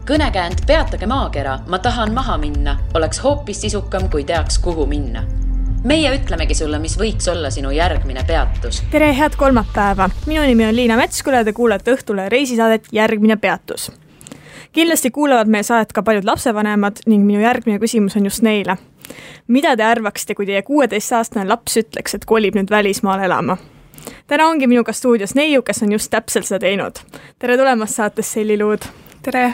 Kõnekäänd Peatage maakera, ma tahan maha minna, oleks hoopis sisukam, kui teaks, kuhu minna. Meie ütlemegi sulle, mis võiks olla sinu järgmine peatus. Tere, head kolmapäeva! Minu nimi on Liina Metsküla ja te kuulete Õhtule reisisaadet Järgmine peatus. Kindlasti kuulavad meie saadet ka paljud lapsevanemad ning minu järgmine küsimus on just neile. Mida te arvaksite, kui teie 16-aastane laps ütleks, et kolib nüüd välismaal elama? Täna ongi minuga stuudios neiu, kes on just täpselt seda teinud. Tere tulemast saates Selliluud. Tere!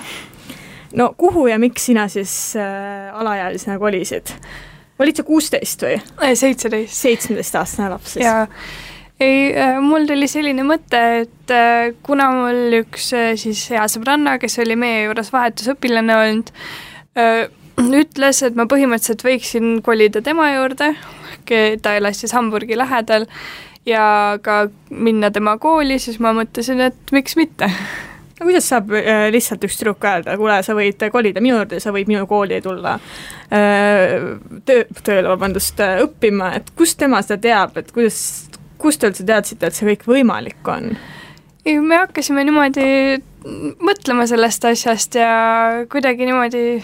No kuhu ja miks sina siis alaealisena kolisid? Olid sa 16 või? 17. 17-aastane laps siis? Ja, mul tuli selline mõte, et kuna mul üks siis hea sõbranna, kes oli meie juures vahetusõpilane olnud, ütles, et ma põhimõtteliselt võiksin kolida tema juurde, ta elas siis Hamburgi lähedal ja ka minna tema kooli, siis ma mõtlesin, et miks mitte. No, kuidas saab lihtsalt üks tüdruk öelda, kuule, sa võid kolida minu juurde, sa võid minu kooli tulla tööle õppima, et kust tema seda teab, et kust te üldse teadsite, et see kõik võimalik on? Me hakkasime niimoodi mõtlema sellest asjast ja kuidagi niimoodi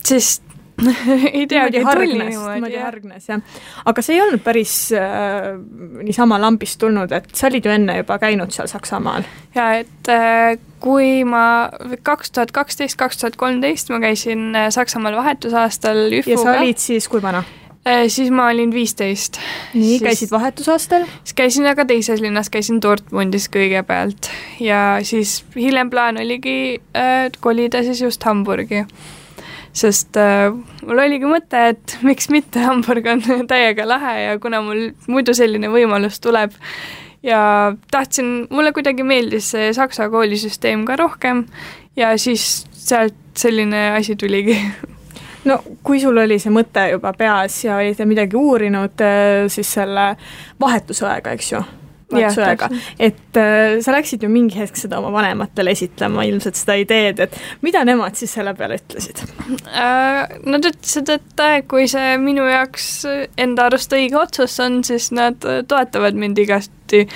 siis ei teagi, tuli niimoodi hargnes, jah. Aga see ei olnud päris niisama lambist tulnud, et sa olid ju enne juba käinud seal Saksamaal. Ja, et kui ma 2012-2013 ma käisin Saksamaal vahetusaastal ÜFUga. Ja sa olid siis kui vana? Siis ma olin 15. Nii, käisid vahetusaastal? Siis käisin aga teises linnas, käisin Dortmundis kõigepealt ja siis hiljem plaan oligi kolida siis just Hamburgi. Sest mul oligi mõte, et miks mitte, Hamburg on täiega lahe ja kuna mul muidu selline võimalus tuleb ja mulle kuidagi meeldis see Saksa koolisüsteem ka rohkem ja siis sealt selline asi tuligi. No kui sul oli see mõte juba peas ja olid midagi uurinud siis selle vahetusõega, eks ju? Vahetusõega. Et sa läksid ju mingi hetk seda oma vanematele esitlema, ilmselt seda ideed, et mida nemad siis selle peale ütlesid? Nad ütlesid, et kui see minu jaoks enda arust õige otsus on, siis nad toetavad mind igasti,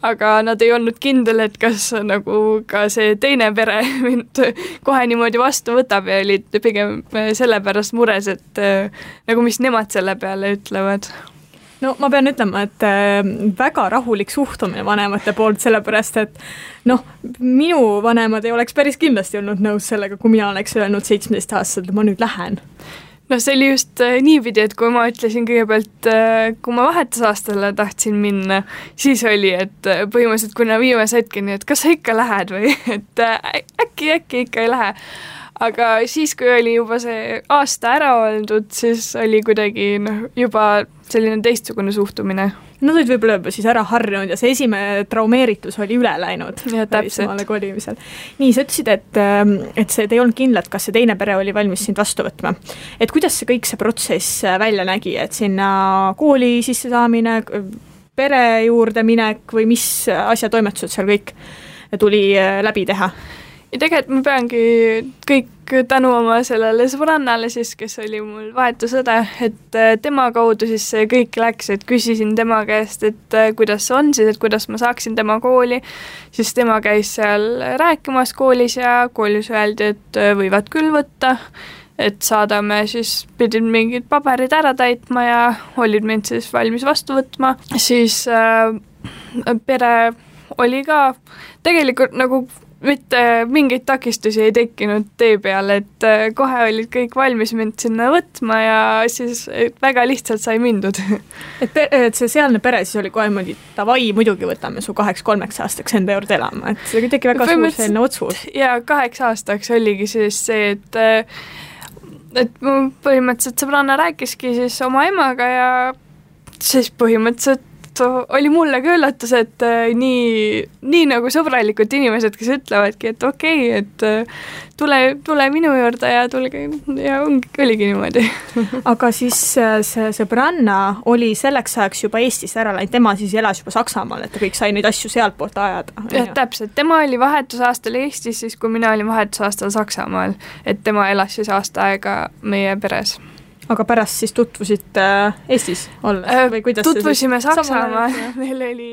aga nad ei olnud kindel, et kas nagu ka see teine pere mind kohe niimoodi vastu võtab ja olid pigem sellepärast mures, et nagu mis nemad selle peale ütlevad. No ma pean ütlema, et väga rahulik suhtumine vanemate poolt, sellepärast, et minu vanemad ei oleks päris kindlasti olnud nõus sellega, kui mina oleks öelnud 17-aastaselt, ma nüüd lähen. No see oli just niipidi, et kui ma ütlesin kõigepealt, kui ma vahetusaastale tahtsin minna, siis oli, et põhimõtteliselt kuna viimase hetkeni, et kas sa ikka lähed või, et äkki ikka ei lähe. Aga siis, kui oli juba see aasta ära oldud, siis oli kuidagi juba selline teistsugune suhtumine. Nad olid võib-olla juba siis ära harjunud ja see esimene traumeeritus oli üle läinud. Ja täpselt. Kolimisel. Nii, sa ütlesid, et see ei olnud kindlalt, kas see teine pere oli valmis sind vastu võtma. Et kuidas see kõik see protsess välja nägi, et sinna kooli sisse saamine, pere juurde minek või mis asjatoimetused seal kõik tuli läbi teha? Ja tegelikult ma peangi kõik tänu oma sellele sõbrannale siis, kes oli mul vahetusõde, et tema kaudu siis see kõik läks, et küsisin tema käest, et kuidas see on siis, et kuidas ma saaksin tema kooli, siis tema käis seal rääkimas koolis ja koolis öeldi, et võivad küll võtta, et saadame siis, pidin mingid paberid ära täitma ja olid mind siis valmis vastu võtma, siis pere oli ka tegelikult nagu mitte mingeid takistusi ei tekkinud tee peale, et kohe olid kõik valmis mind sinna võtma ja siis väga lihtsalt sai mindud. Et see sealne pere siis oli kohe mõni tavai, muidugi võtame su 2-3 aastaks enda juurde elama, et see tegi väga suur selline otsus. Ja 8 aastaks oligi siis see, et mu põhimõtteliselt sõbranna rääkiski siis oma emaga ja siis põhimõtteliselt oli mulle ka üllatus, et nii nagu sõbralikud inimesed, kes ütlevadki, et okei, et tule minu juurde ja tulge ja oligi niimoodi. Aga siis see sõbranna oli selleks ajaks juba Eestis ära läinud, tema siis elas juba Saksamaal, et ta kõik sai neid asju sealt poolt ajada. Ja, täpselt, tema oli vahetusaastal Eestis, siis kui mina olin vahetusaastal Saksamaal, et tema elas siis aasta aega meie peres. aga pärast siis tutvusite Eestis olles või kuidas tutvusime Saksamaal, meil oli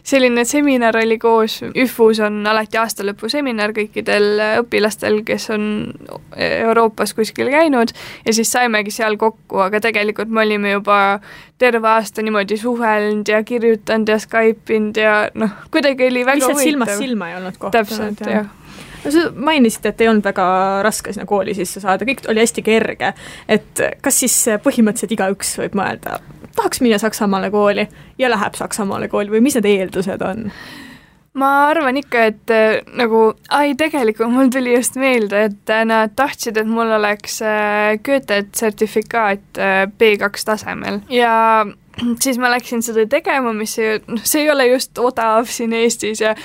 selline seminar oli koos, ÜFUs on alati aastalõpu seminar kõikidel õpilastel, kes on Euroopas kuskil käinud ja siis saimegi seal kokku, aga tegelikult me olime juba terve aasta niimoodi suhelnud ja kirjutanud ja Skype'inud ja kuidagi oli väga huvitav. Silmast silma ei olnud kohta. Täpselt, jah. Sa mainisid, et ei olnud väga raske sinna kooli sisse saada, kõik oli hästi kerge, et kas siis põhimõtteliselt igaüks võib mõelda, tahaks minna Saksamaale kooli ja läheb Saksamaale kooli või mis need eeldused on? Ma arvan ikka, et tegelikult mul tuli just meelde, et nad tahtsid, et mul oleks Goethe-sertifikaat B2 tasemel ja siis ma läksin seda tegema, mis see ei ole just odav siin Eestis ja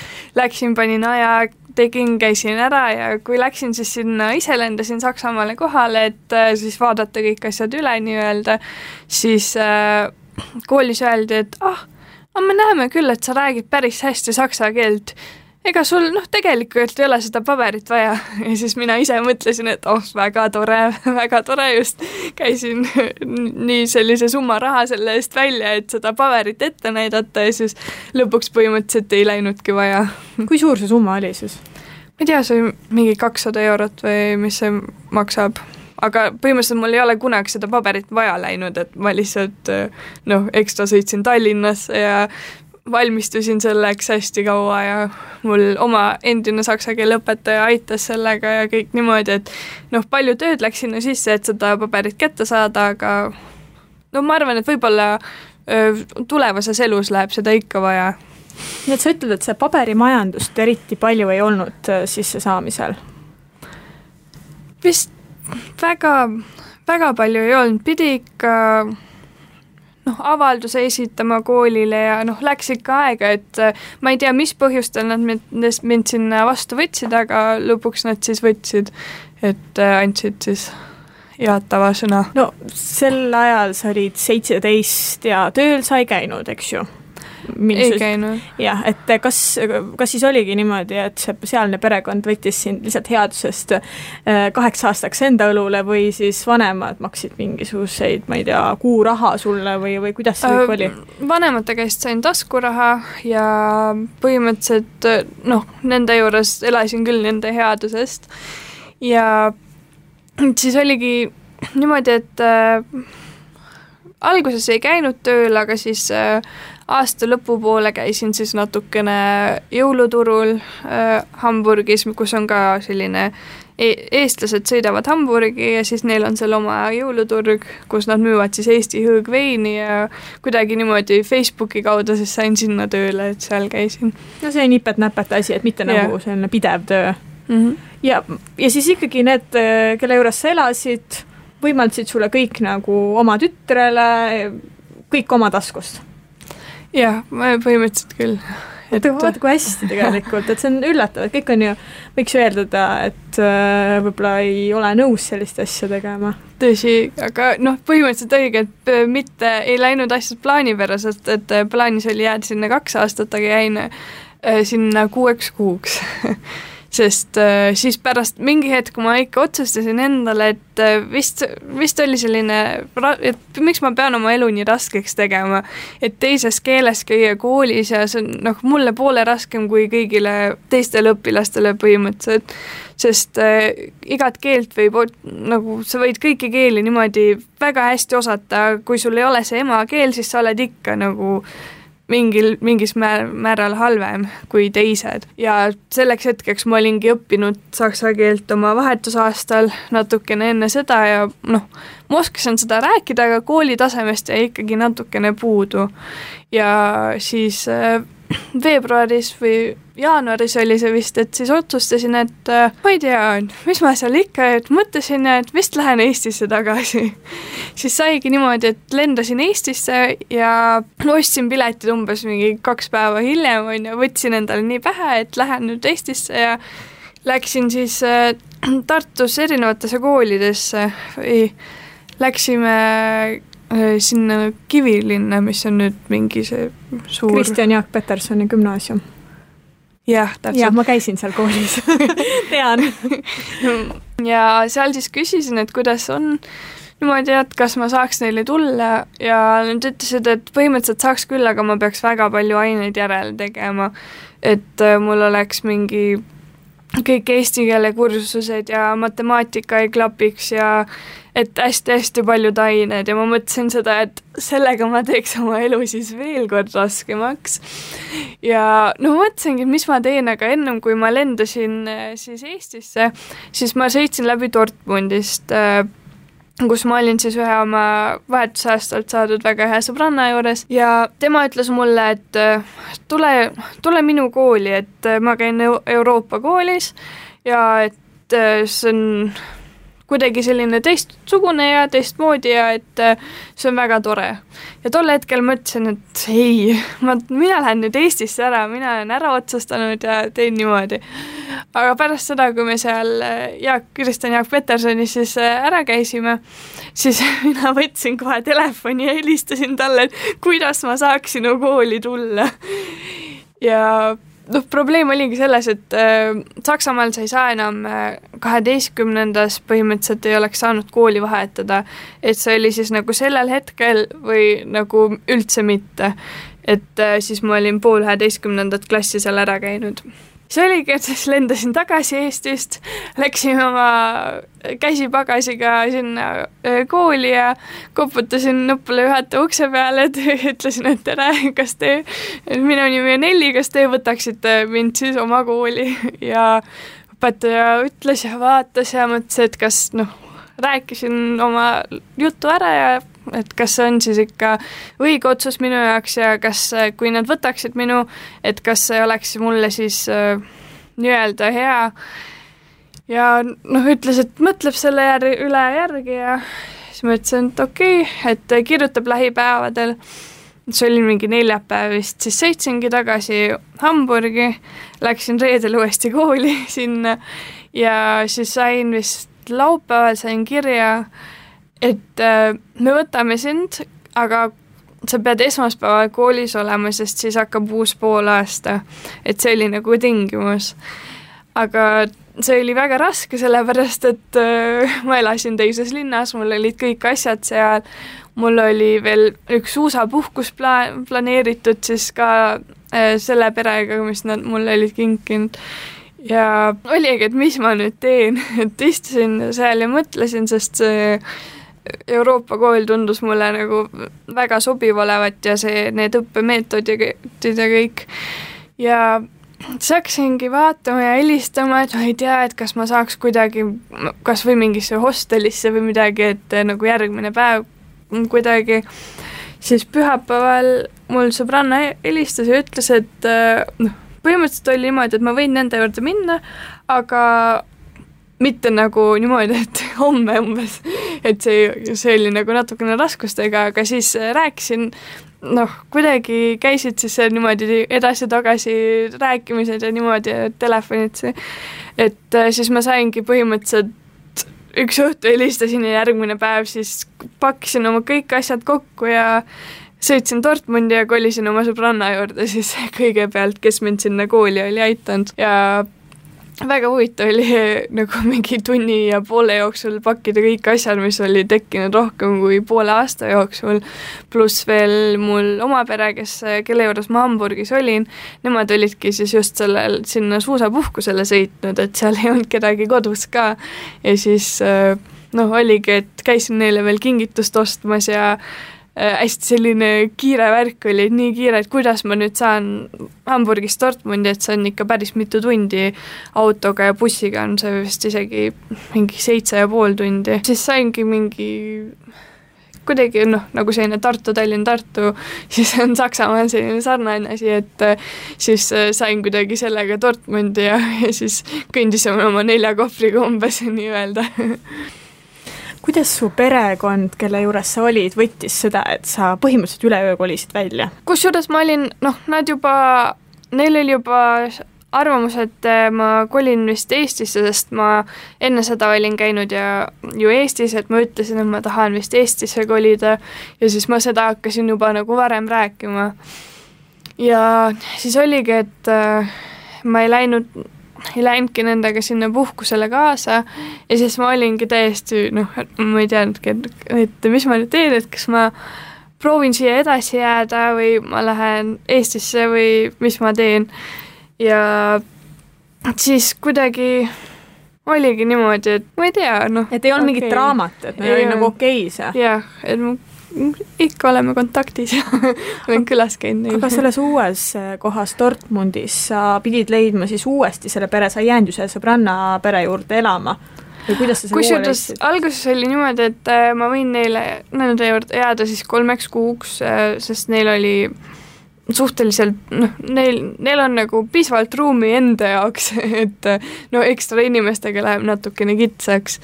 panin aja, käisin ära ja kui läksin siis sinna, ise lendasin Saksamaale kohale, et siis vaadata kõik asjad üle nii-öelda, siis koolis öeldi, et me näeme küll, et sa räägid päris hästi saksa keelt. Ega sul tegelikult ei ole seda paberit vaja ja siis mina ise mõtlesin, et väga tore just käisin nii sellise summa raha selle eest välja, et seda paberit ette näidata ja siis lõpuks põhimõtteliselt ei läinudki vaja. Kui suur see summa oli siis? Ma ei tea, see mingi 200 eurot või mis see maksab, aga põhimõtteliselt mul ei ole kunagi seda paberit vaja läinud, et ma lihtsalt ekstra sõitsin Tallinnasse ja valmistusin selleks hästi kaua ja mul oma endine saksa keele õpetaja aitas sellega ja kõik niimoodi, et palju tööd läks sinna sisse, et seda paberit kätte saada, aga ma arvan, et võib-olla tulevases elus läheb seda ikka vaja. Nii et sa ütled, et see paberimajandust eriti palju ei olnud sisse saamisel? Vist väga palju ei olnud, pidi ikka avalduse esitama koolile ja läks ikka aega, et ma ei tea, mis põhjustel nad mind sinna vastu võtsid, aga lõpuks nad siis võtsid, et andsid siis jaatava sõna. No sel ajal sa olid 17 ja tööl sa ei käinud, eks ju? Ei käinud. Jah, et kas siis oligi niimoodi, et see sealne perekond võttis sind lihtsalt headusest 8 aastaks enda õlule või siis vanemad maksid mingisuguseid, ma ei tea, kuuraha sulle või kuidas see kõik oli? Vanemate käest sain taskuraha ja põhimõtteliselt nende juures elasin küll nende headusest ja siis oligi niimoodi, et alguses ei käinud tööl, aga siis aasta lõpupoole käisin siis natukene jõuluturul Hamburgis, kus on ka selline eestlased sõidavad Hamburgi ja siis neil on seal oma jõuluturg, kus nad müüvad siis Eesti hõõgveini ja kuidagi niimoodi Facebooki kaudu siis sain sinna tööle, et seal käisin. No see on nipet-näpet asi, et mitte nagu selline pidev töö. Ja siis ikkagi need, kelle juures sa elasid, võimaldasid sulle kõik nagu oma tütrele, kõik oma taskust? Jah, põhimõtteliselt küll. Vaata kui hästi tegelikult, et see on üllatav, et kõik on ju, võiks ju eeldada, et võib-olla ei ole nõus sellist asja tegema. Tõsi, aga põhimõtteliselt õige, et mitte ei läinud asjad plaanipäraselt, et plaanis oli jääda sinna 2 aastat, aga jäin sinna 6 kuuks. Sest siis pärast mingi hetk, kui ma ikka otsustasin endale, et vist oli selline, et miks ma pean oma elu nii raskeks tegema, et teises keeles käia koolis ja see on mulle poole raskem kui kõigile teistele õpilastele põhimõtteliselt, sest igat keelt võib, sa võid kõiki keeli niimoodi väga hästi osata, kui sul ei ole see emakeel, siis sa oled ikka mingis määral halvem kui teised. Ja selleks hetkeks ma olingi õppinud saksa keelt oma vahetusaastal natukene enne seda ja ma oskasin seda rääkida, aga kooli tasemest jäi ikkagi natukene puudu. Ja siis veebruaris või jaanuaris oli see vist, et siis otsustasin, et ma ei tea, mis ma seal ikka, et mõtlesin, et vist lähen Eestisse tagasi. Siis saigi niimoodi, et lendasin Eestisse ja ostsin piletid umbes mingi 2 päeva hiljem, võtsin endale nii pähe, et lähen nüüd Eestisse ja läksin siis Tartus erinevatesse koolidesse või läksime sinna Kivilinna, mis on nüüd mingi see suur... Kristjan Jaak Petersoni gümnaasium. Jah, täpselt. Jah, ma käisin seal koolis. Tean. Ja seal siis küsisin, et kuidas on niimoodi, et kas ma saaks neile tulla ja nad ütlesid, et põhimõtteliselt saaks küll, aga ma peaks väga palju aineid järele tegema, et mul oleks mingi kõik eesti keele kursused ja matemaatika ei klapiks ja et hästi-hästi paljud ained ja ma mõtlesin seda, et sellega ma teeks oma elu siis veel kord raskemaks. Ja no mõtlesingi, mis ma teen, aga ennem kui ma lendasin siis Eestisse, siis ma sõitsin läbi Dortmundist, kus ma olin siis ühe oma vahetusaastalt saadud väga hea sõbranna juures ja tema ütles mulle, et tule minu kooli, et ma käin Euroopa koolis ja et see on kuidagi selline teistsugune ja teistmoodi ja et see on väga tore. Ja tol hetkel mõtlesin, et ei, mina lähen nüüd Eestisse ära, mina olen ära otsustanud ja teen niimoodi. Aga pärast seda, kui me seal Kristjan Jaak Petersoni siis ära käisime, siis mina võtsin kohe telefoni ja helistasin talle, et kuidas ma saaks sinu kooli tulla. Ja probleem oligi selles, et Saksamaal sa ei saa enam 12. põhimõtteliselt ei oleks saanud kooli vahetada, et see oli siis nagu sellel hetkel või nagu üldse mitte, et siis ma olin pool 11. klassi seal ära käinud. See oligi, et siis lendasin tagasi Eestist, läksin oma käsipagasiga sinna kooli ja koputasin nuppule juhataja ukse peale, et ütlesin, et tere, minu nimi on Elli, kas te võtaksite mind siis oma kooli ja õpetaja ütles ja vaatas ja mõtles, et kas rääkisin oma jutu ära ja et kas see on siis ikka õige otsus minu jaoks ja kas, kui nad võtaksid minu, et kas see oleks mulle siis nii-öelda hea ja ütles, et mõtleb selle üle järgi ja siis ma ütlesin, et okei, et kirjutab lähipäevadel, see oli mingi neljapäev vist, siis sõitsingi tagasi Hamburgi, läksin reedel uuesti kooli sinna ja siis sain vist laupäeval sain kirja, et me võtame sind, aga sa pead esmaspäeval koolis olema, sest siis hakkab uus poolaasta, et see oli nagu tingimus. Aga see oli väga raske, sellepärast, et ma elasin teises linnas, mul olid kõik asjad seal, mul oli veel üks suusapuhkus planeeritud siis ka selle perega, mis nad mulle olid kinkinud. Ja oligi, et mis ma nüüd teen, et istusin seal ja mõtlesin, sest see Euroopa kool tundus mulle nagu väga sobiv olevat ja need õppemeetodid ja kõik. Ja saksingi vaatama ja helistama, et ma ei tea, et kas ma saaks kuidagi kas või mingisse hostelisse või midagi, et nagu järgmine päev kuidagi. Siis pühapäeval mul sõbranna helistas ja ütles, et põhimõtteliselt oli niimoodi, et ma võin nende juurde minna, aga mitte nagu niimoodi, et homme umbes, et see oli nagu natukene raskustega, aga siis rääkisin, kuidagi käisid siis niimoodi edasi-tagasi rääkimised ja niimoodi telefonid, et siis ma saingi põhimõtteliselt üks õhtu helistasin ja järgmine päev siis pakkisin oma kõik asjad kokku ja sõitsin Dortmundi ja kolisin oma sõbranna juurde siis kõigepealt, kes mind sinna kooli oli aitanud ja väga huvitav oli nagu mingi tunni ja poole jooksul pakkida kõik asjad, mis oli tekkinud rohkem kui poole aasta jooksul, pluss veel mul oma pere, kelle juures ma Hamburgis olin, nemad olidki siis just sinna suusapuhkusele sõitnud, et seal ei olnud kedagi kodus ka ja siis oligi, et käisin neile veel kingitust ostmas ja hästi selline kiire värk oli, nii kiire, et kuidas ma nüüd saan Hamburgist Dortmundi, et see on ikka päris mitu tundi autoga ja bussiga on see vist isegi mingi 7,5 tundi. Siis saingi mingi kuidagi nagu selline Tartu, siis on Saksamaal selline sarnane asi, et siis sain kuidagi sellega Dortmundi ja siis kõndisime oma 4 kohvriga umbes nii-öelda. Kuidas su perekond, kelle juures sa olid, võttis seda, et sa põhimõtteliselt üleöö kolisid välja? Kusjuures ma olin, neil oli juba arvamus, et ma kolin vist Eestisse, sest ma enne seda olin käinud ju Eestis, et ma ütlesin, et ma tahan vist Eestisse kolida ja siis ma seda hakkasin juba nagu varem rääkima. Ja siis oligi, et ma ei läinud ei läinudki nendega sinna puhkusele kaasa ja siis ma olingi täiesti, ma ei teadnudki, et mis ma nüüd teen, et kas ma proovin siia edasi jääda või ma lähen Eestisse või mis ma teen. Ja siis kuidagi oligi niimoodi, et ma ei tea, et ei olnud mingit draamat, et oli nagu okei see. Jah, et ikka oleme kontaktis ja olen külas käinud. Aga selles uues kohas Dortmundis sa pidid leidma siis uuesti selle pere, sa ei jäänud ju selle sõbranna pere juurde elama. Või kuidas sa selle uue leidsid? Alguses oli niimoodi, et ma võin nende juurde jääda siis 3 kuuks, sest neil oli suhteliselt, neil on nagu piisavalt ruumi enda jaoks, et ekstra inimestega läheb natukene kitsaks.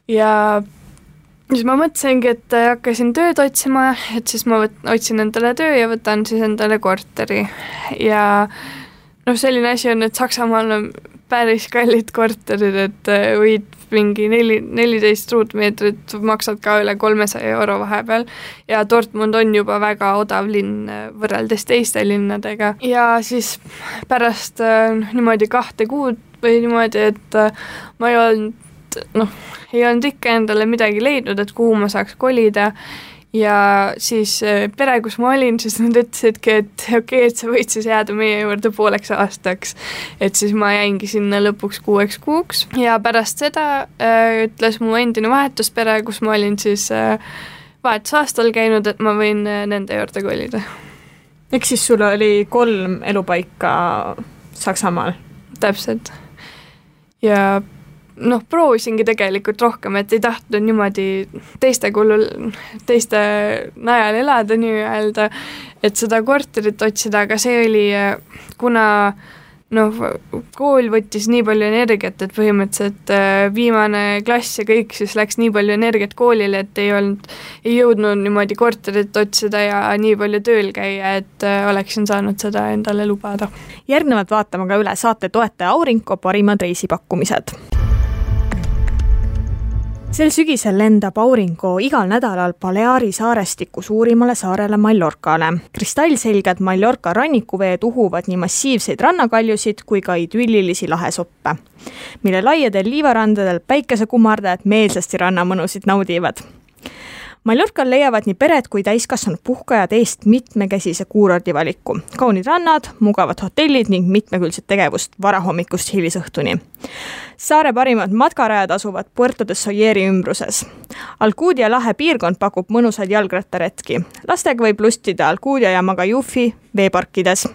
Ja siis ma mõtlesingi, et hakkasin tööd otsima, et siis ma otsin endale töö ja võtan siis endale korteri. Ja selline asi on, et Saksamaal on päris kallid korterid, et võid mingi 14 ruutmeetrit maksad ka üle 300 € vahepeal ja Dortmund on juba väga odav linn võrreldes teiste linnadega. Ja siis pärast niimoodi 2 kuud või niimoodi, et ma ei olnud ikka endale midagi leidnud, et kuhu ma saaks kolida ja siis pere, kus ma olin, siis nad ütlesidki, et okei, et sa võid siis jääda meie juurde 5 aastaks. Et siis ma jäingi sinna lõpuks 6 kuuks ja pärast seda ütles mu endine vahetuspere, kus ma olin siis vahetusaastal käinud, et ma võin nende juurde kolida. Eks siis sul oli 3 elupaika Saksamaal? Täpselt. Ja proovisingi tegelikult rohkem, et ei tahtnud niimoodi teiste najal elada nii-öelda, et seda korterit otsida, aga see oli, kuna kool võttis nii palju energiat, et põhimõtteliselt viimane klass ja kõik siis läks nii palju energiat koolile, et ei jõudnud niimoodi korterit otsida ja nii palju tööl käia, et oleksin saanud seda endale lubada. Järgnevalt vaatame ka üle saate toetaja Aurinko parimad reisipakkumised. Sel sügisel lendab Aurinko igal nädalal Baleari saarestiku suurimale saarele Mallorcale. Kristallselged Mallorca rannikuveed uhuvad nii massiivseid rannakaljusid kui ka idüllilisi lahesoppe, mille laiadel liivarandadel päikesekumardajad meelsasti rannamõnusid naudivad. Mallorcal leiavad nii pered kui täiskasvanud puhkajad eest mitmekäsise kuurordivaliku. Kaunid rannad, mugavad hotellid ning mitmekülgset tegevust varahommikust hilisõhtuni. Saare parimad matkarajad asuvad Puerto de Soyeri ümbruses. Alcudia lahe piirkond pakub mõnusad jalgrattaretki. Lastega võib lustida Alcudia ja Magajufi veeparkides.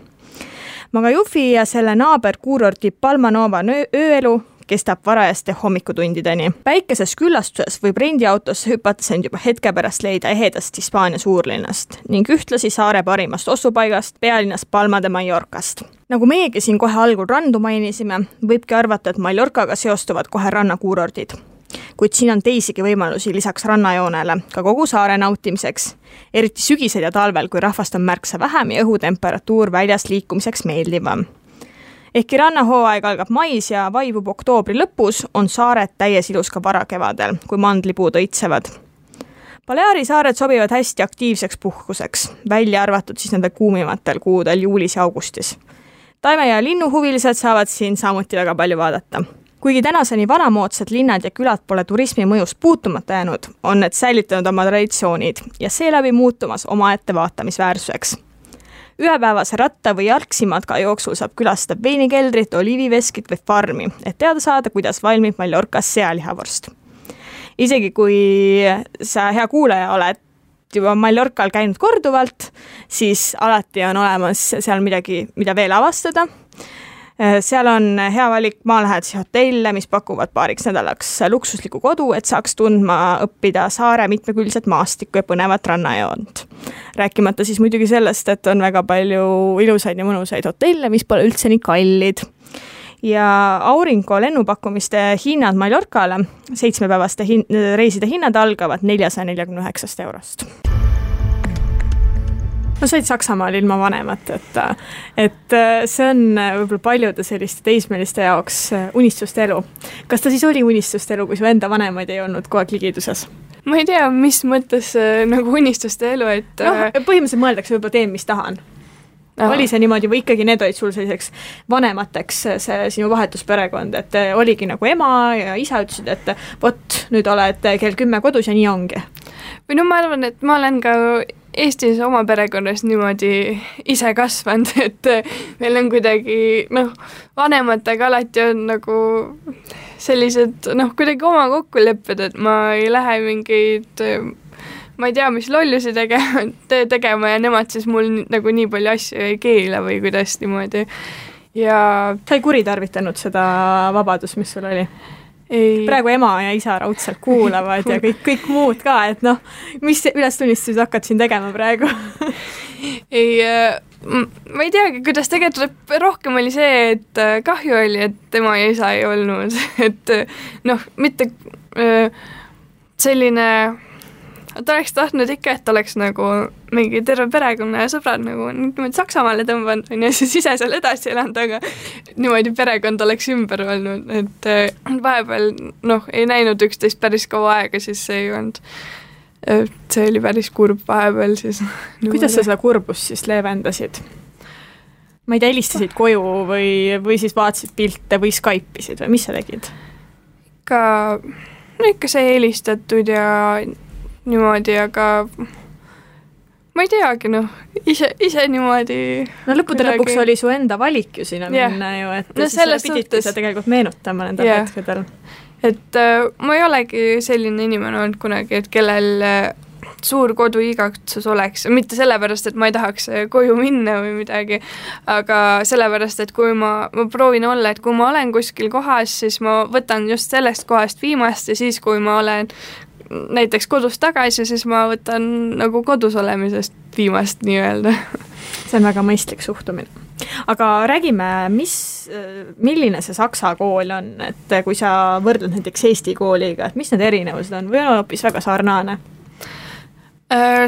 Magajufi ja selle naaber kuurordi Palma Nova ööelu kestab varajaste hommikutundideni. Päikeses küllastuses võib rendiautosse hüpates end juba hetke pärast leida ehedast Hispaania suurlinnast ning ühtlasi saare parimast ostupaigast, pealinnast Palma de Mallorcast. Nagu meiegi siin kohe algul randu mainisime, võibki arvata, et Mallorcaga seostuvad kohe rannakuurordid. Kuid siin on teisigi võimalusi lisaks rannajoonele ka kogu saare nautimiseks, eriti sügisel ja talvel, kui rahvast on märksa vähem ja õhutemperatuur väljas liikumiseks meeldivam. Ehkki rannahooaeg algab mais ja vaibub oktoobri lõpus, on saared täies ilus ka varakevadel, kui mandlipuud õitsevad. Baleari saared sobivad hästi aktiivseks puhkuseks, välja arvatud siis nende kuumimatel kuudel juulis ja augustis. Taime- ja linnuhuvilised saavad siin samuti väga palju vaadata. Kuigi tänaseni vanamoodsad linnad ja külad pole turismi mõjust puutumata jäänud, on need säilitanud oma traditsioonid ja seeläbi muutumas omaette vaatamisväärsuseks. Ühepäevase ratta või jalgsimatka jooksul saab külastada veinikeldrit, oliiviveskit või farmi, et teada saada, kuidas valmib Mallorcas sealihavorst. Isegi kui sa hea kuulaja oled juba Mallorcal käinud korduvalt, siis alati on olemas seal midagi, mida veel avastada. Seal on hea valik maalähedasi hotelle, mis pakuvad paariks nädalaks luksusliku kodu, et saaks tundma õppida saare mitmekülgset maastikku ja põnevat rannajoont. Rääkimata siis muidugi sellest, et on väga palju ilusaid ja mõnusaid hotelle, mis pole üldse nii kallid. Ja Aurinko lennupakkumiste hinnad Mallorcale, 7-päevaste reiside hinnad algavad 449 €. No said Saksamaal ilma vanemat, et see on võib-olla paljude selliste teismeliste jaoks unistuste elu. Kas ta siis oli unistuste elu, kui su enda vanemaid ei olnud kogu aeg ligiduses? Ma ei tea, mis mõttes nagu unistuste elu, et... põhimõtteliselt mõeldakse võib-olla teen, mis tahan. Oli see niimoodi või ikkagi need olid sul selliseks vanemateks see sinu vahetusperekond, et oligi nagu ema ja isa ütlesid, et vot, nüüd oled kell 10 kodus ja nii ongi? Või no ma arvan, et ma olen ka Eestis oma perekonnas niimoodi ise kasvanud, et meil on kuidagi, vanematega alati on nagu sellised, kuidagi oma kokkulepped, et ma ei lähe mingeid, ma ei tea, mis lollusi tegema ja nemad siis mul nagu nii palju asju ei keela või kuidas niimoodi. Ja sa ei kuritarvitanud seda vabadust, mis sul oli? Ei. Praegu ema ja isa raudselt kuulavad ja kõik muud ka, et mis ülestunnistused hakkad siin tegema praegu? Ei, ma ei teagi, kuidas tegelikult rohkem oli see, et kahju oli, et tema ja isa ei olnud, et mitte selline, ta oleks tahtnud ikka, et oleks nagu mingi terve perekonna ja sõbrad nagu niimoodi Saksamaale tõmbanud ja siis ise seal edasi elanud, aga niimoodi perekond oleks ümber olnud, et vahepeal ei näinud üksteist päris kaua aega, siis see ei olnud, see oli päris kurb vahepeal siis. Kuidas sa seda kurbust siis leevendasid? Ma ei tea, helistasid koju või siis vaatasid pilte või Skype'isid või mis sa tegid? Ikka see helistatud ja niimoodi, aga ma ei teagi, ise niimoodi. Lõppude lõpuks oli su enda valik ju sinna minna ju, et siis pididki sa tegelikult meenutama nende hetkedel. Et ma ei olegi selline inimene olnud kunagi, et kellel suur kodu igatsus oleks, mitte sellepärast, et ma ei tahaks koju minna või midagi, aga sellepärast, et kui ma proovin olla, et kui ma olen kuskil kohas, siis ma võtan just sellest kohast viimast ja siis, kui ma olen näiteks kodus tagasi, siis ma võtan nagu kodus olemisest viimast nii-öelda. See on väga mõistlik suhtumine. Aga räägime, milline see Saksa kool on, et kui sa võrdled näiteks Eesti kooliga, et mis need erinevused on või on hoopis väga sarnane?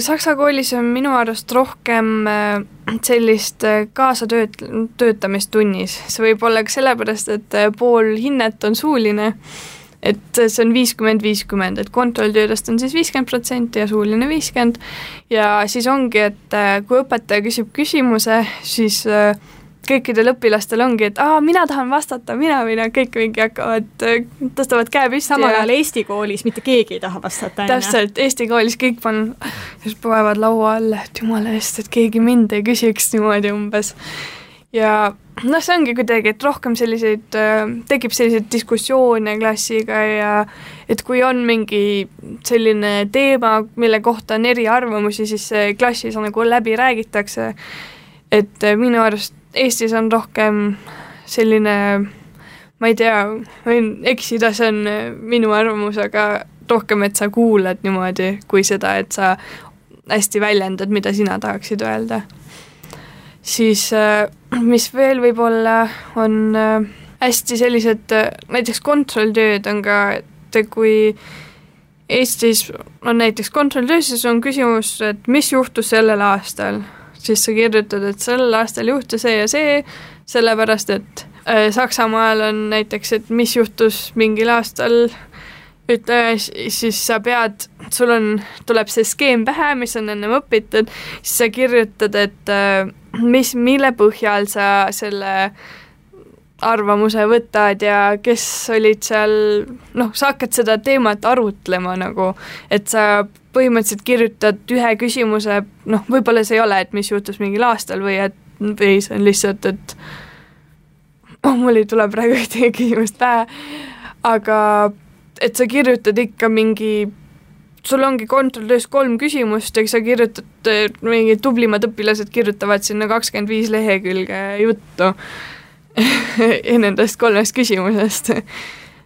Saksa koolis on minu arust rohkem sellist kaasatöötamist tunnis. See võib olla ka sellepärast, et pool hinnet on suuline, et see on 50-50, et kontrolltöödest on siis 50% ja suuline 50% ja siis ongi, et kui õpetaja küsib küsimuse, siis kõikidel õpilastel ongi, et mina tahan vastata, mina kõik mingi hakkavad, tõstavad käe püsti. Samal ajal Eesti koolis mitte keegi ei taha vastata. Täpselt, Eesti koolis kõik panevad laua alla, et jumala eest, et keegi mind ei küsiks niimoodi umbes. Ja see ongi kuidagi, et rohkem tekib selliseid diskussioone klassiga ja et kui on mingi selline teema, mille kohta on eriarvamusi, siis klassis nagu läbi räägitakse. Et minu arust Eestis on rohkem selline, ma ei tea, võin eksida, see on minu arvamus, aga rohkem, et sa kuulad niimoodi kui seda, et sa hästi väljendad, mida sina tahaksid öelda. Siis mis veel võib-olla on hästi sellised, näiteks kontrolltööd on ka, et kui Eestis on näiteks kontrolltöö, siis on küsimus, et mis juhtus sellel aastal, siis sa kirjutad, et sellel aastal juhtus see ja see, sellepärast, et Saksamaal on näiteks, et mis juhtus mingil aastal, siis sa pead, tuleb see skeem pähe, mis on ennem õpitud, siis sa kirjutad, et mille põhjal sa selle arvamuse võtad ja kes olid seal, sa hakkad seda teemat arutlema nagu, et sa põhimõtteliselt kirjutad ühe küsimuse, võib-olla see ei ole, et mis juhtus mingil aastal või see on lihtsalt, et mul ei tule praegu ühtegi küsimust pähe, aga et sa kirjutad ikka sul ongi kontrolltöös 3 küsimust ja sa kirjutad, mingid tublimad õpilased kirjutavad sinna 25 lehekülge juttu nendest 3 küsimusest.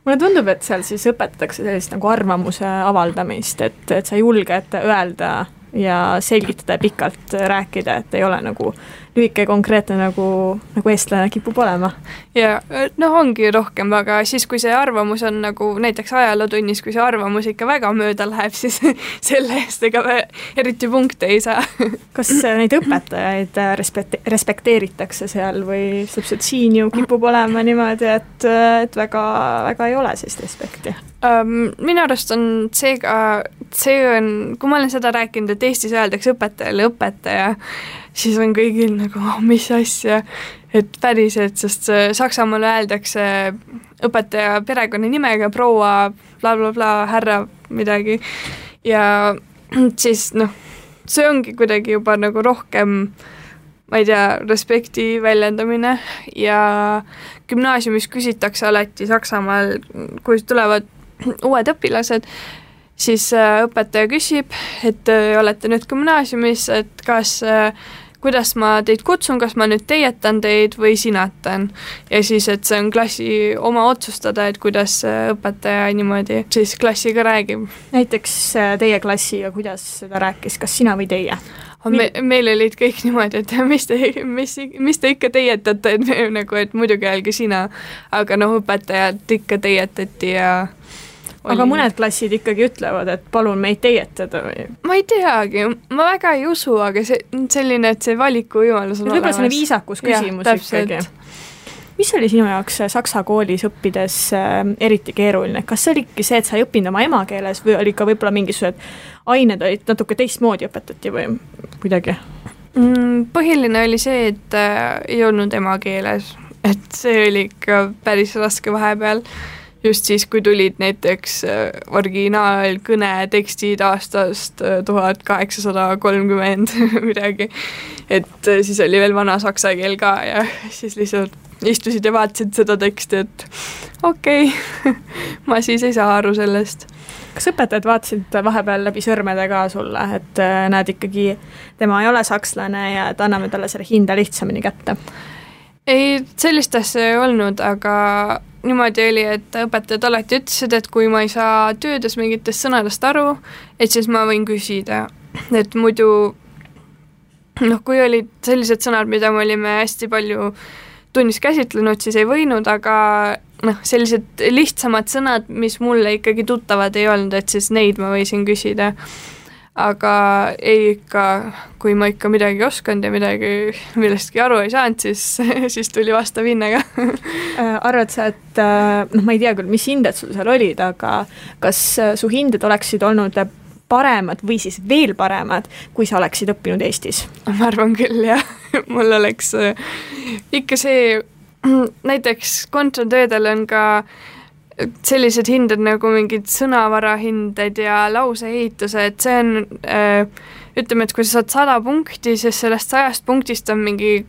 Mulle tundub, et seal siis õpetatakse sellist nagu arvamuse avaldamist, et sa julged öelda ja selgitada ja pikalt rääkida, et ei ole nagu lühike konkreetne nagu eestlane kipub olema. Ja ongi rohkem, aga siis kui see arvamus on nagu näiteks ajalootunnis, kui see arvamus ikka väga mööda läheb, siis selle eest ega eriti punkte ei saa. Kas neid õpetajaid respekteeritakse seal või täpselt siin ju kipub olema niimoodi, et väga, väga ei ole siis respekti? Minu arust on kui ma olen seda rääkinud, et Eestis öeldakse õpetajale õpetaja, siis on kõigil nagu, mis asja, et päriselt, sest Saksamaal öeldakse õpetaja perekonnanimega proua bla, härra midagi ja siis see ongi kuidagi juba nagu rohkem, ma ei tea, respekti väljendamine ja gümnaasiumis küsitakse alati Saksamaal, kui tulevad uued õpilased, siis õpetaja küsib, et olete nüüd gümnaasiumis, et kuidas ma teid kutsun, kas ma nüüd teietan teid või sinatan. Ja siis, et see on klassi oma otsustada, et kuidas õpetaja niimoodi siis klassiga räägib. Näiteks teie klassiga, kuidas seda rääkis, kas sina või teie? Meil olid kõik niimoodi, et mis te ikka teietate, et muidugi öelge sina, aga õpetajad ikka teietati ja aga mõned klassid ikkagi ütlevad, et palun meid teietada või? Ma ei teagi, ma väga ei usu, aga selline, et see valikuvõimalus on olemas. Võib-olla selline viisakus küsimus ikkagi. Mis oli sinu jaoks saksa koolis õppides eriti keeruline? Kas see oligi see, et sa ei õppinud oma emakeeles või oli ka võib-olla mingisugused ained olid natuke teistmoodi õpetati või kuidagi? Põhiline oli see, et ei olnud emakeeles, et see oli ikka päris raske vahepeal. Just siis, kui tulid näiteks originaalkõne tekstid aastast 1830 midagi, et siis oli veel vana saksa keel ka ja siis lihtsalt istusid ja vaatasid seda teksti, et okei, ma siis ei saa aru sellest. Kas õpetajad vaatasid vahepeal läbi sõrmede ka sulle, et näed ikkagi, tema ei ole sakslane ja et anname talle selle hinda lihtsamini kätte? Ei, sellist asja ei olnud, aga niimoodi oli, et õpetajad alati ütlesid, et kui ma ei saa töödes mingitest sõnadest aru, et siis ma võin küsida. Et muidu, kui olid sellised sõnad, mida me olime hästi palju tunnis käsitlenud, siis ei võinud, aga sellised lihtsamad sõnad, mis mulle ikkagi tuttavad ei olnud, et siis neid ma võisin küsida. Aga ei ikka, kui ma ikka midagi oskanud ja midagi millestki aru ei saanud, siis tuli vastav hinnega. Arvad sa, et ma ei tea küll, mis hinded sul seal olid, aga kas su hinded oleksid olnud paremad või siis veel paremad, kui sa oleksid õppinud Eestis? Ma arvan küll, jah. Mul oleks ikka see, näiteks kontratöödel on ka sellised hinded nagu mingid sõnavarahinded ja lauseehituse, et see on, ütleme, et kui sa saad 100 punkti, siis sellest 100 punktist on mingi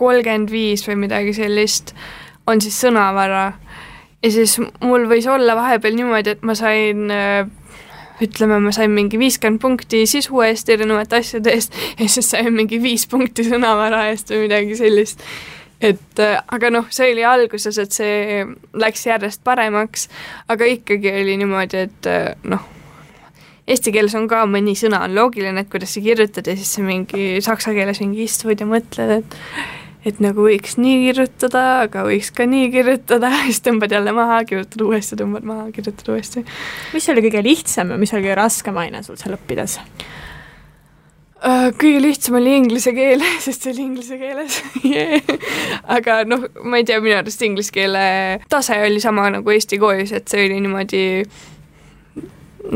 35 või midagi sellist, on siis sõnavara. Ja siis mul võis olla vahepeal niimoodi, et ma sain mingi 50 punkti sisu eest erinevate asjade eest ja siis sain mingi 5 punkti sõnavara eest või midagi sellist. Et, aga see oli alguses, et see läks järjest paremaks, aga ikkagi oli niimoodi, et eesti keeles on ka mõni sõna on loogiline, et kuidas sa kirjutad ja siis see mingi saksa keeles mingi istud ja mõtled, et nagu võiks nii kirjutada, aga võiks ka nii kirjutada, siis tõmbad jälle maha, kirjutad uuesti, tõmbad maha, kirjutad uuesti. Mis oli kõige lihtsam ja mis oli kõige raskem aine sul seal õppides? Kõige lihtsam oli inglise keel, sest see oli inglise keeles. Aga ma ei tea, minu arust inglise keele tase oli sama nagu Eesti koolis, et see oli niimoodi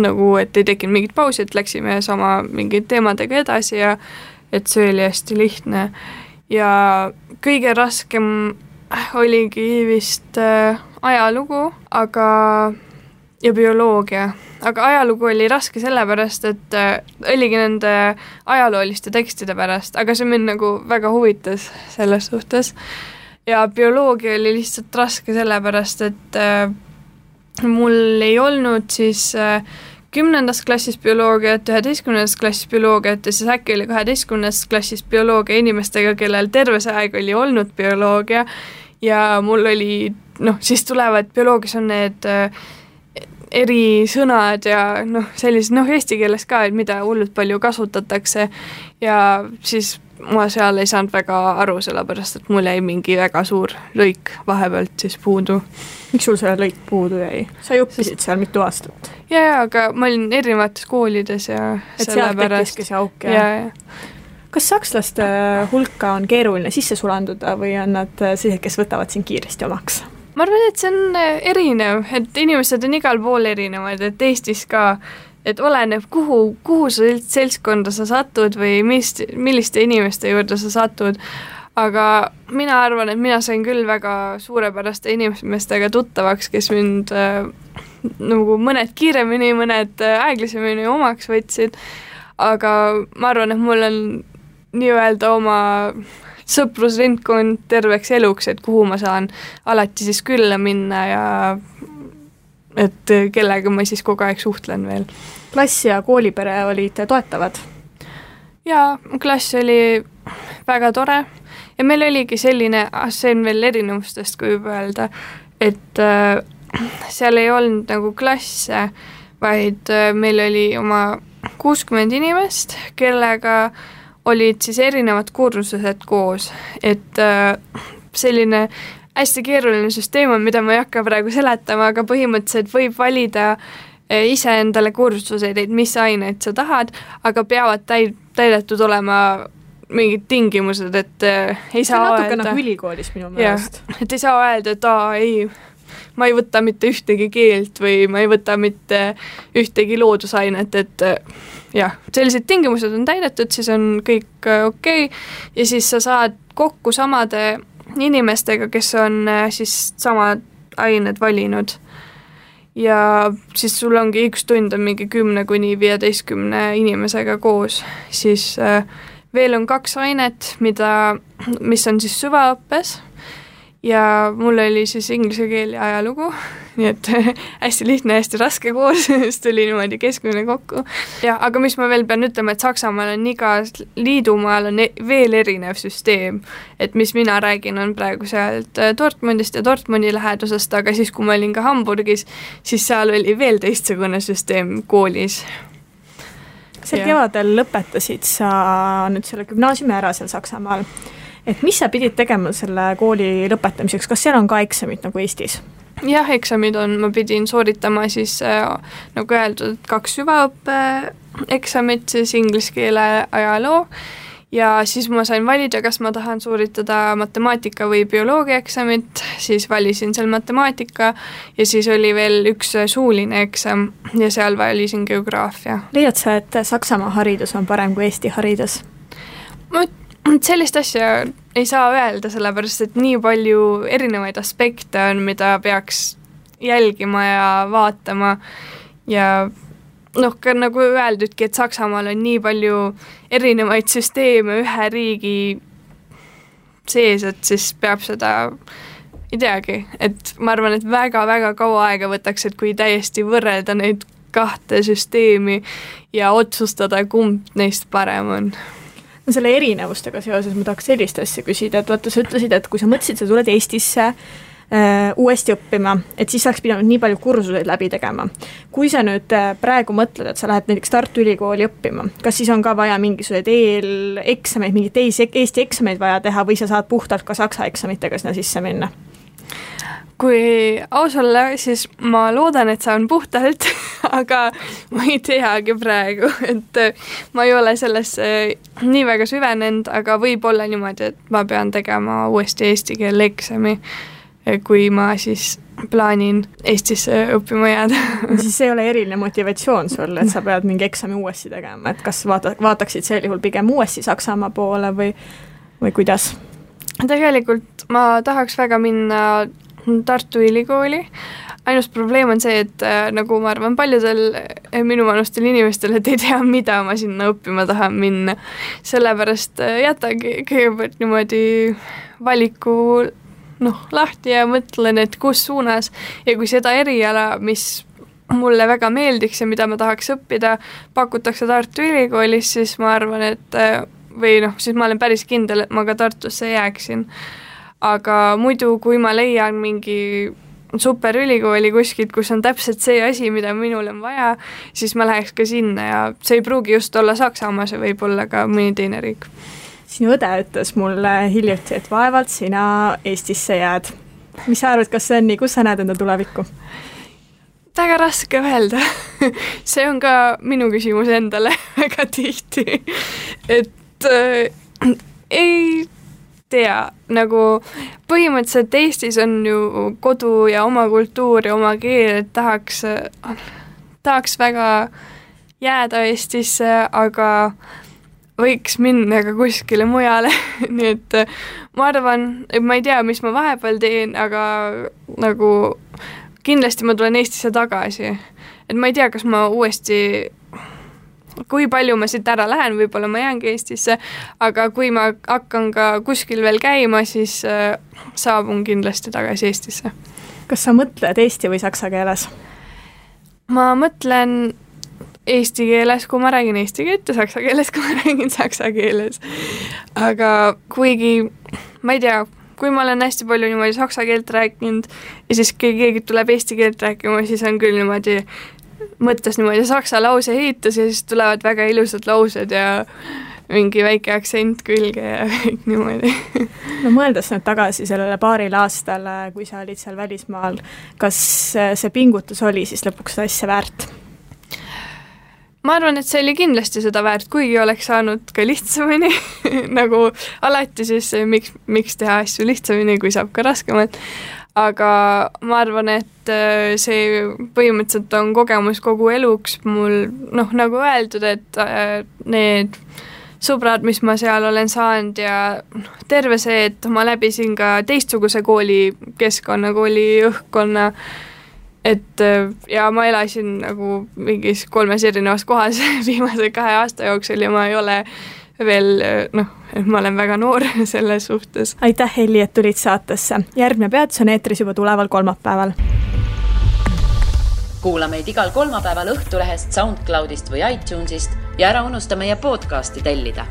nagu, et ei tekkinud mingit pausi, et läksime sama mingid teemadega edasi ja et see oli hästi lihtne. Ja kõige raskem oligi vist ajalugu, ja bioloogia. Aga ajalugu oli raske sellepärast, et oligi nende ajalooliste tekstide pärast, aga see mind nagu väga huvitas selles suhtes. Ja bioloogia oli lihtsalt raske sellepärast, et mul ei olnud siis 10. klassis bioloogiat, 11. klassis bioloogiat ja siis äkki oli 12. klassis bioloogia inimestega, kellel terve see aeg oli olnud bioloogia ja mul oli, siis tulevad bioloogias on need erisõnad ja sellised, eesti keeles ka, et mida hullult palju kasutatakse ja siis ma seal ei saanud väga aru, sellepärast et mul jäi mingi väga suur lõik vahepealt siis puudu. Miks sul selle lõik puudu jäi? Sa ju õppisid seal mitu aastat. Ja, aga ma olin erinevates koolides ja et seal tekkiski see auk ja. Kas sakslaste hulka on keeruline sisse sulanduda või on nad sellised, kes võtavad siin kiiresti omaks? Ma arvan, et see on erinev, et inimesed on igal pool erinevad, et Eestis ka, et oleneb, kuhu sa seltskonda sa satud või milliste inimeste juurde sa satud, aga mina arvan, et mina sain küll väga suurepäraste inimestega tuttavaks, kes mind nagu mõned kiiremini, mõned aeglasemini omaks võtsid, aga ma arvan, et mul on nii-öelda oma sõprusringkond terveks eluks, et kuhu ma saan alati siis külla minna ja et kellega ma siis kogu aeg suhtlen veel. Klass ja koolipere olid toetavad? Jaa, klass oli väga tore ja meil oligi selline, see on veel erinevustest, kui juba öelda, et seal ei olnud nagu klasse, vaid meil oli oma 60 inimest, kellega olid siis erinevad kursused koos, et selline hästi keeruline süsteem on, mida ma ei hakka praegu seletama, aga põhimõtteliselt võib valida ise endale kursuseid, et mis aineid sa tahad, aga peavad täidetud olema mingid tingimused, et ei saa öelda... natuke nagu ülikoolis minu meelest. Et ei saa öelda, et ei, ma ei võta mitte ühtegi keelt või ma ei võta mitte ühtegi loodusainet, et jah, sellised tingimused on täidetud, siis on kõik okei ja siis sa saad kokku samade inimestega, kes on siis samad ained valinud. Ja siis sul ongi üks tund on mingi 10–15 inimesega koos, siis veel on 2 ainet, mis on siis süvaõppes ja mul oli siis inglise keel ja ajalugu, nii et hästi lihtne, hästi raske koos, siis tuli niimoodi keskmine kokku. Ja, aga mis ma veel pean ütlema, et Saksamaal on igas liidumaal on veel erinev süsteem, et mis mina räägin on praegu sealt Dortmundist ja Dortmundi lähedusest, aga siis kui ma olin ka Hamburgis, siis seal oli veel teistsugune süsteem koolis. Sel kevadel lõpetasid sa nüüd selle gümnaasiumi ära seal Saksamaal. Et mis sa pidid tegema selle kooli lõpetamiseks? Kas seal on ka eksamid nagu Eestis? Jah, eksamid on, ma pidin sooritama siis nagu öeldud 2 süvaõppe eksamit, siis inglise keele ajaloo ja siis ma sain valida, kas ma tahan sooritada matemaatika või bioloogia eksamit, siis valisin seal matemaatika ja siis oli veel üks suuline eksam ja seal valisin geograafia. Leiad sa, et Saksamaa haridus on parem kui Eesti haridus? Sellist asja ei saa öelda, sellepärast et nii palju erinevaid aspekte on, mida peaks jälgima ja vaatama ja ka nagu öeldudki, et Saksamaal on nii palju erinevaid süsteeme ühe riigi sees, et siis peab seda, ei teagi, et ma arvan, et väga-väga kaua aega võtaks, et kui täiesti võrrelda neid 2 süsteemi ja otsustada, kumb neist parem on. No selle erinevustega seoses ma tahaks sellist asja küsida, et vaata, sa ütlesid, et kui sa mõtlesid, sa tuled Eestisse uuesti õppima, et siis oleks pidanud nii palju kursuseid läbi tegema. Kui sa nüüd praegu mõtled, et sa lähed näiteks Tartu Ülikooli õppima, kas siis on ka vaja mingisugused eeleksameid, mingeid teisi Eesti eksameid vaja teha või sa saad puhtalt ka saksa eksamitega sinna sisse minna? Kui aus olla, siis ma loodan, et saan puhtalt, aga ma ei teagi praegu, et ma ei ole sellesse nii väga süvenenud, aga võib olla niimoodi, et ma pean tegema uuesti eesti keele eksami, kui ma siis plaanin Eestisse õppima jääda. Siis ei ole eriline motivatsioon sul, et sa pead mingi eksami uuesti tegema, et kas vaataksid sel juhul pigem uuesti Saksamaa poole või kuidas? Tegelikult ma tahaks väga minna Tartu Ülikooli. Ainus probleem on see, et nagu ma arvan paljudel minuvanustel inimestel, et ei tea, mida ma sinna õppima tahan minna. Sellepärast jätagi kõigepealt niimoodi valiku lahti ja mõtlen, et kus suunas ja kui seda eriala, mis mulle väga meeldiks ja mida ma tahaks õppida, pakutakse Tartu Ülikoolis, siis ma arvan, et siis ma olen päris kindel, et ma ka Tartusse jääksin. Aga muidu, kui ma leian mingi superülikooli kuskilt, kus on täpselt see asi, mida minul on vaja, siis ma läheks ka sinna ja see ei pruugi just olla Saksamaa, see võib olla ka mõni teine riik. Sinu õde ütles mulle hiljuti, et vaevalt sina Eestisse jääd. Mis sa arvad, kas see on nii, kus sa näed enda tulevikku? Väga raske öelda. See on ka minu küsimus endale väga tihti, et ei tea, nagu põhimõtteliselt Eestis on ju kodu ja oma kultuur ja oma keel, et tahaks väga jääda Eestisse, aga võiks minna ka kuskile mujale, nii et ma arvan, et ma ei tea, mis ma vahepeal teen, aga nagu kindlasti ma tulen Eestisse tagasi. Et ma ei tea, kas ma uuesti, kui palju ma siit ära lähen, võib-olla ma jäängi Eestisse, aga kui ma hakkan ka kuskil veel käima, siis saabun kindlasti tagasi Eestisse. Kas sa mõtled eesti või saksa keeles? Ma mõtlen eesti keeles, kui ma räägin eesti keelt ja saksa keeles, kui ma räägin saksa keeles. Aga kuigi, ma ei tea, kui ma olen hästi palju niimoodi saksa keelt rääkinud ja siis keegi tuleb eesti keelt rääkima, siis on küll niimoodi, mõttes niimoodi saksa lause ehitus ja siis tulevad väga ilusad laused ja mingi väike aktsent külge ja kõik niimoodi. No mõeldes nüüd tagasi sellele paarile aastale, kui sa olid seal välismaal, kas see pingutus oli siis lõpuks seda asja väärt? Ma arvan, et see oli kindlasti seda väärt, kuigi oleks saanud ka lihtsamini, nagu alati siis miks teha asju lihtsamini, kui saab ka raskemalt. Aga ma arvan, et see põhimõtteliselt on kogemus kogu eluks mul, nagu öeldud, et need sõbrad, mis ma seal olen saanud ja terve see, et ma läbisin ka teistsuguse koolikeskkonna, kooli õhkkonna, et ja ma elasin nagu mingis 3 erinevas kohas viimase 2 aasta jooksul ja ma ei ole veel, ma olen väga noor selles suhtes. Aitäh, Helli, et tulid saatesse. Järgmine peatus on eetris juba tuleval kolmapäeval. Kuula meid igal kolmapäeval Õhtulehest, SoundCloudist või iTunesist ja ära unusta meie podcasti tellida.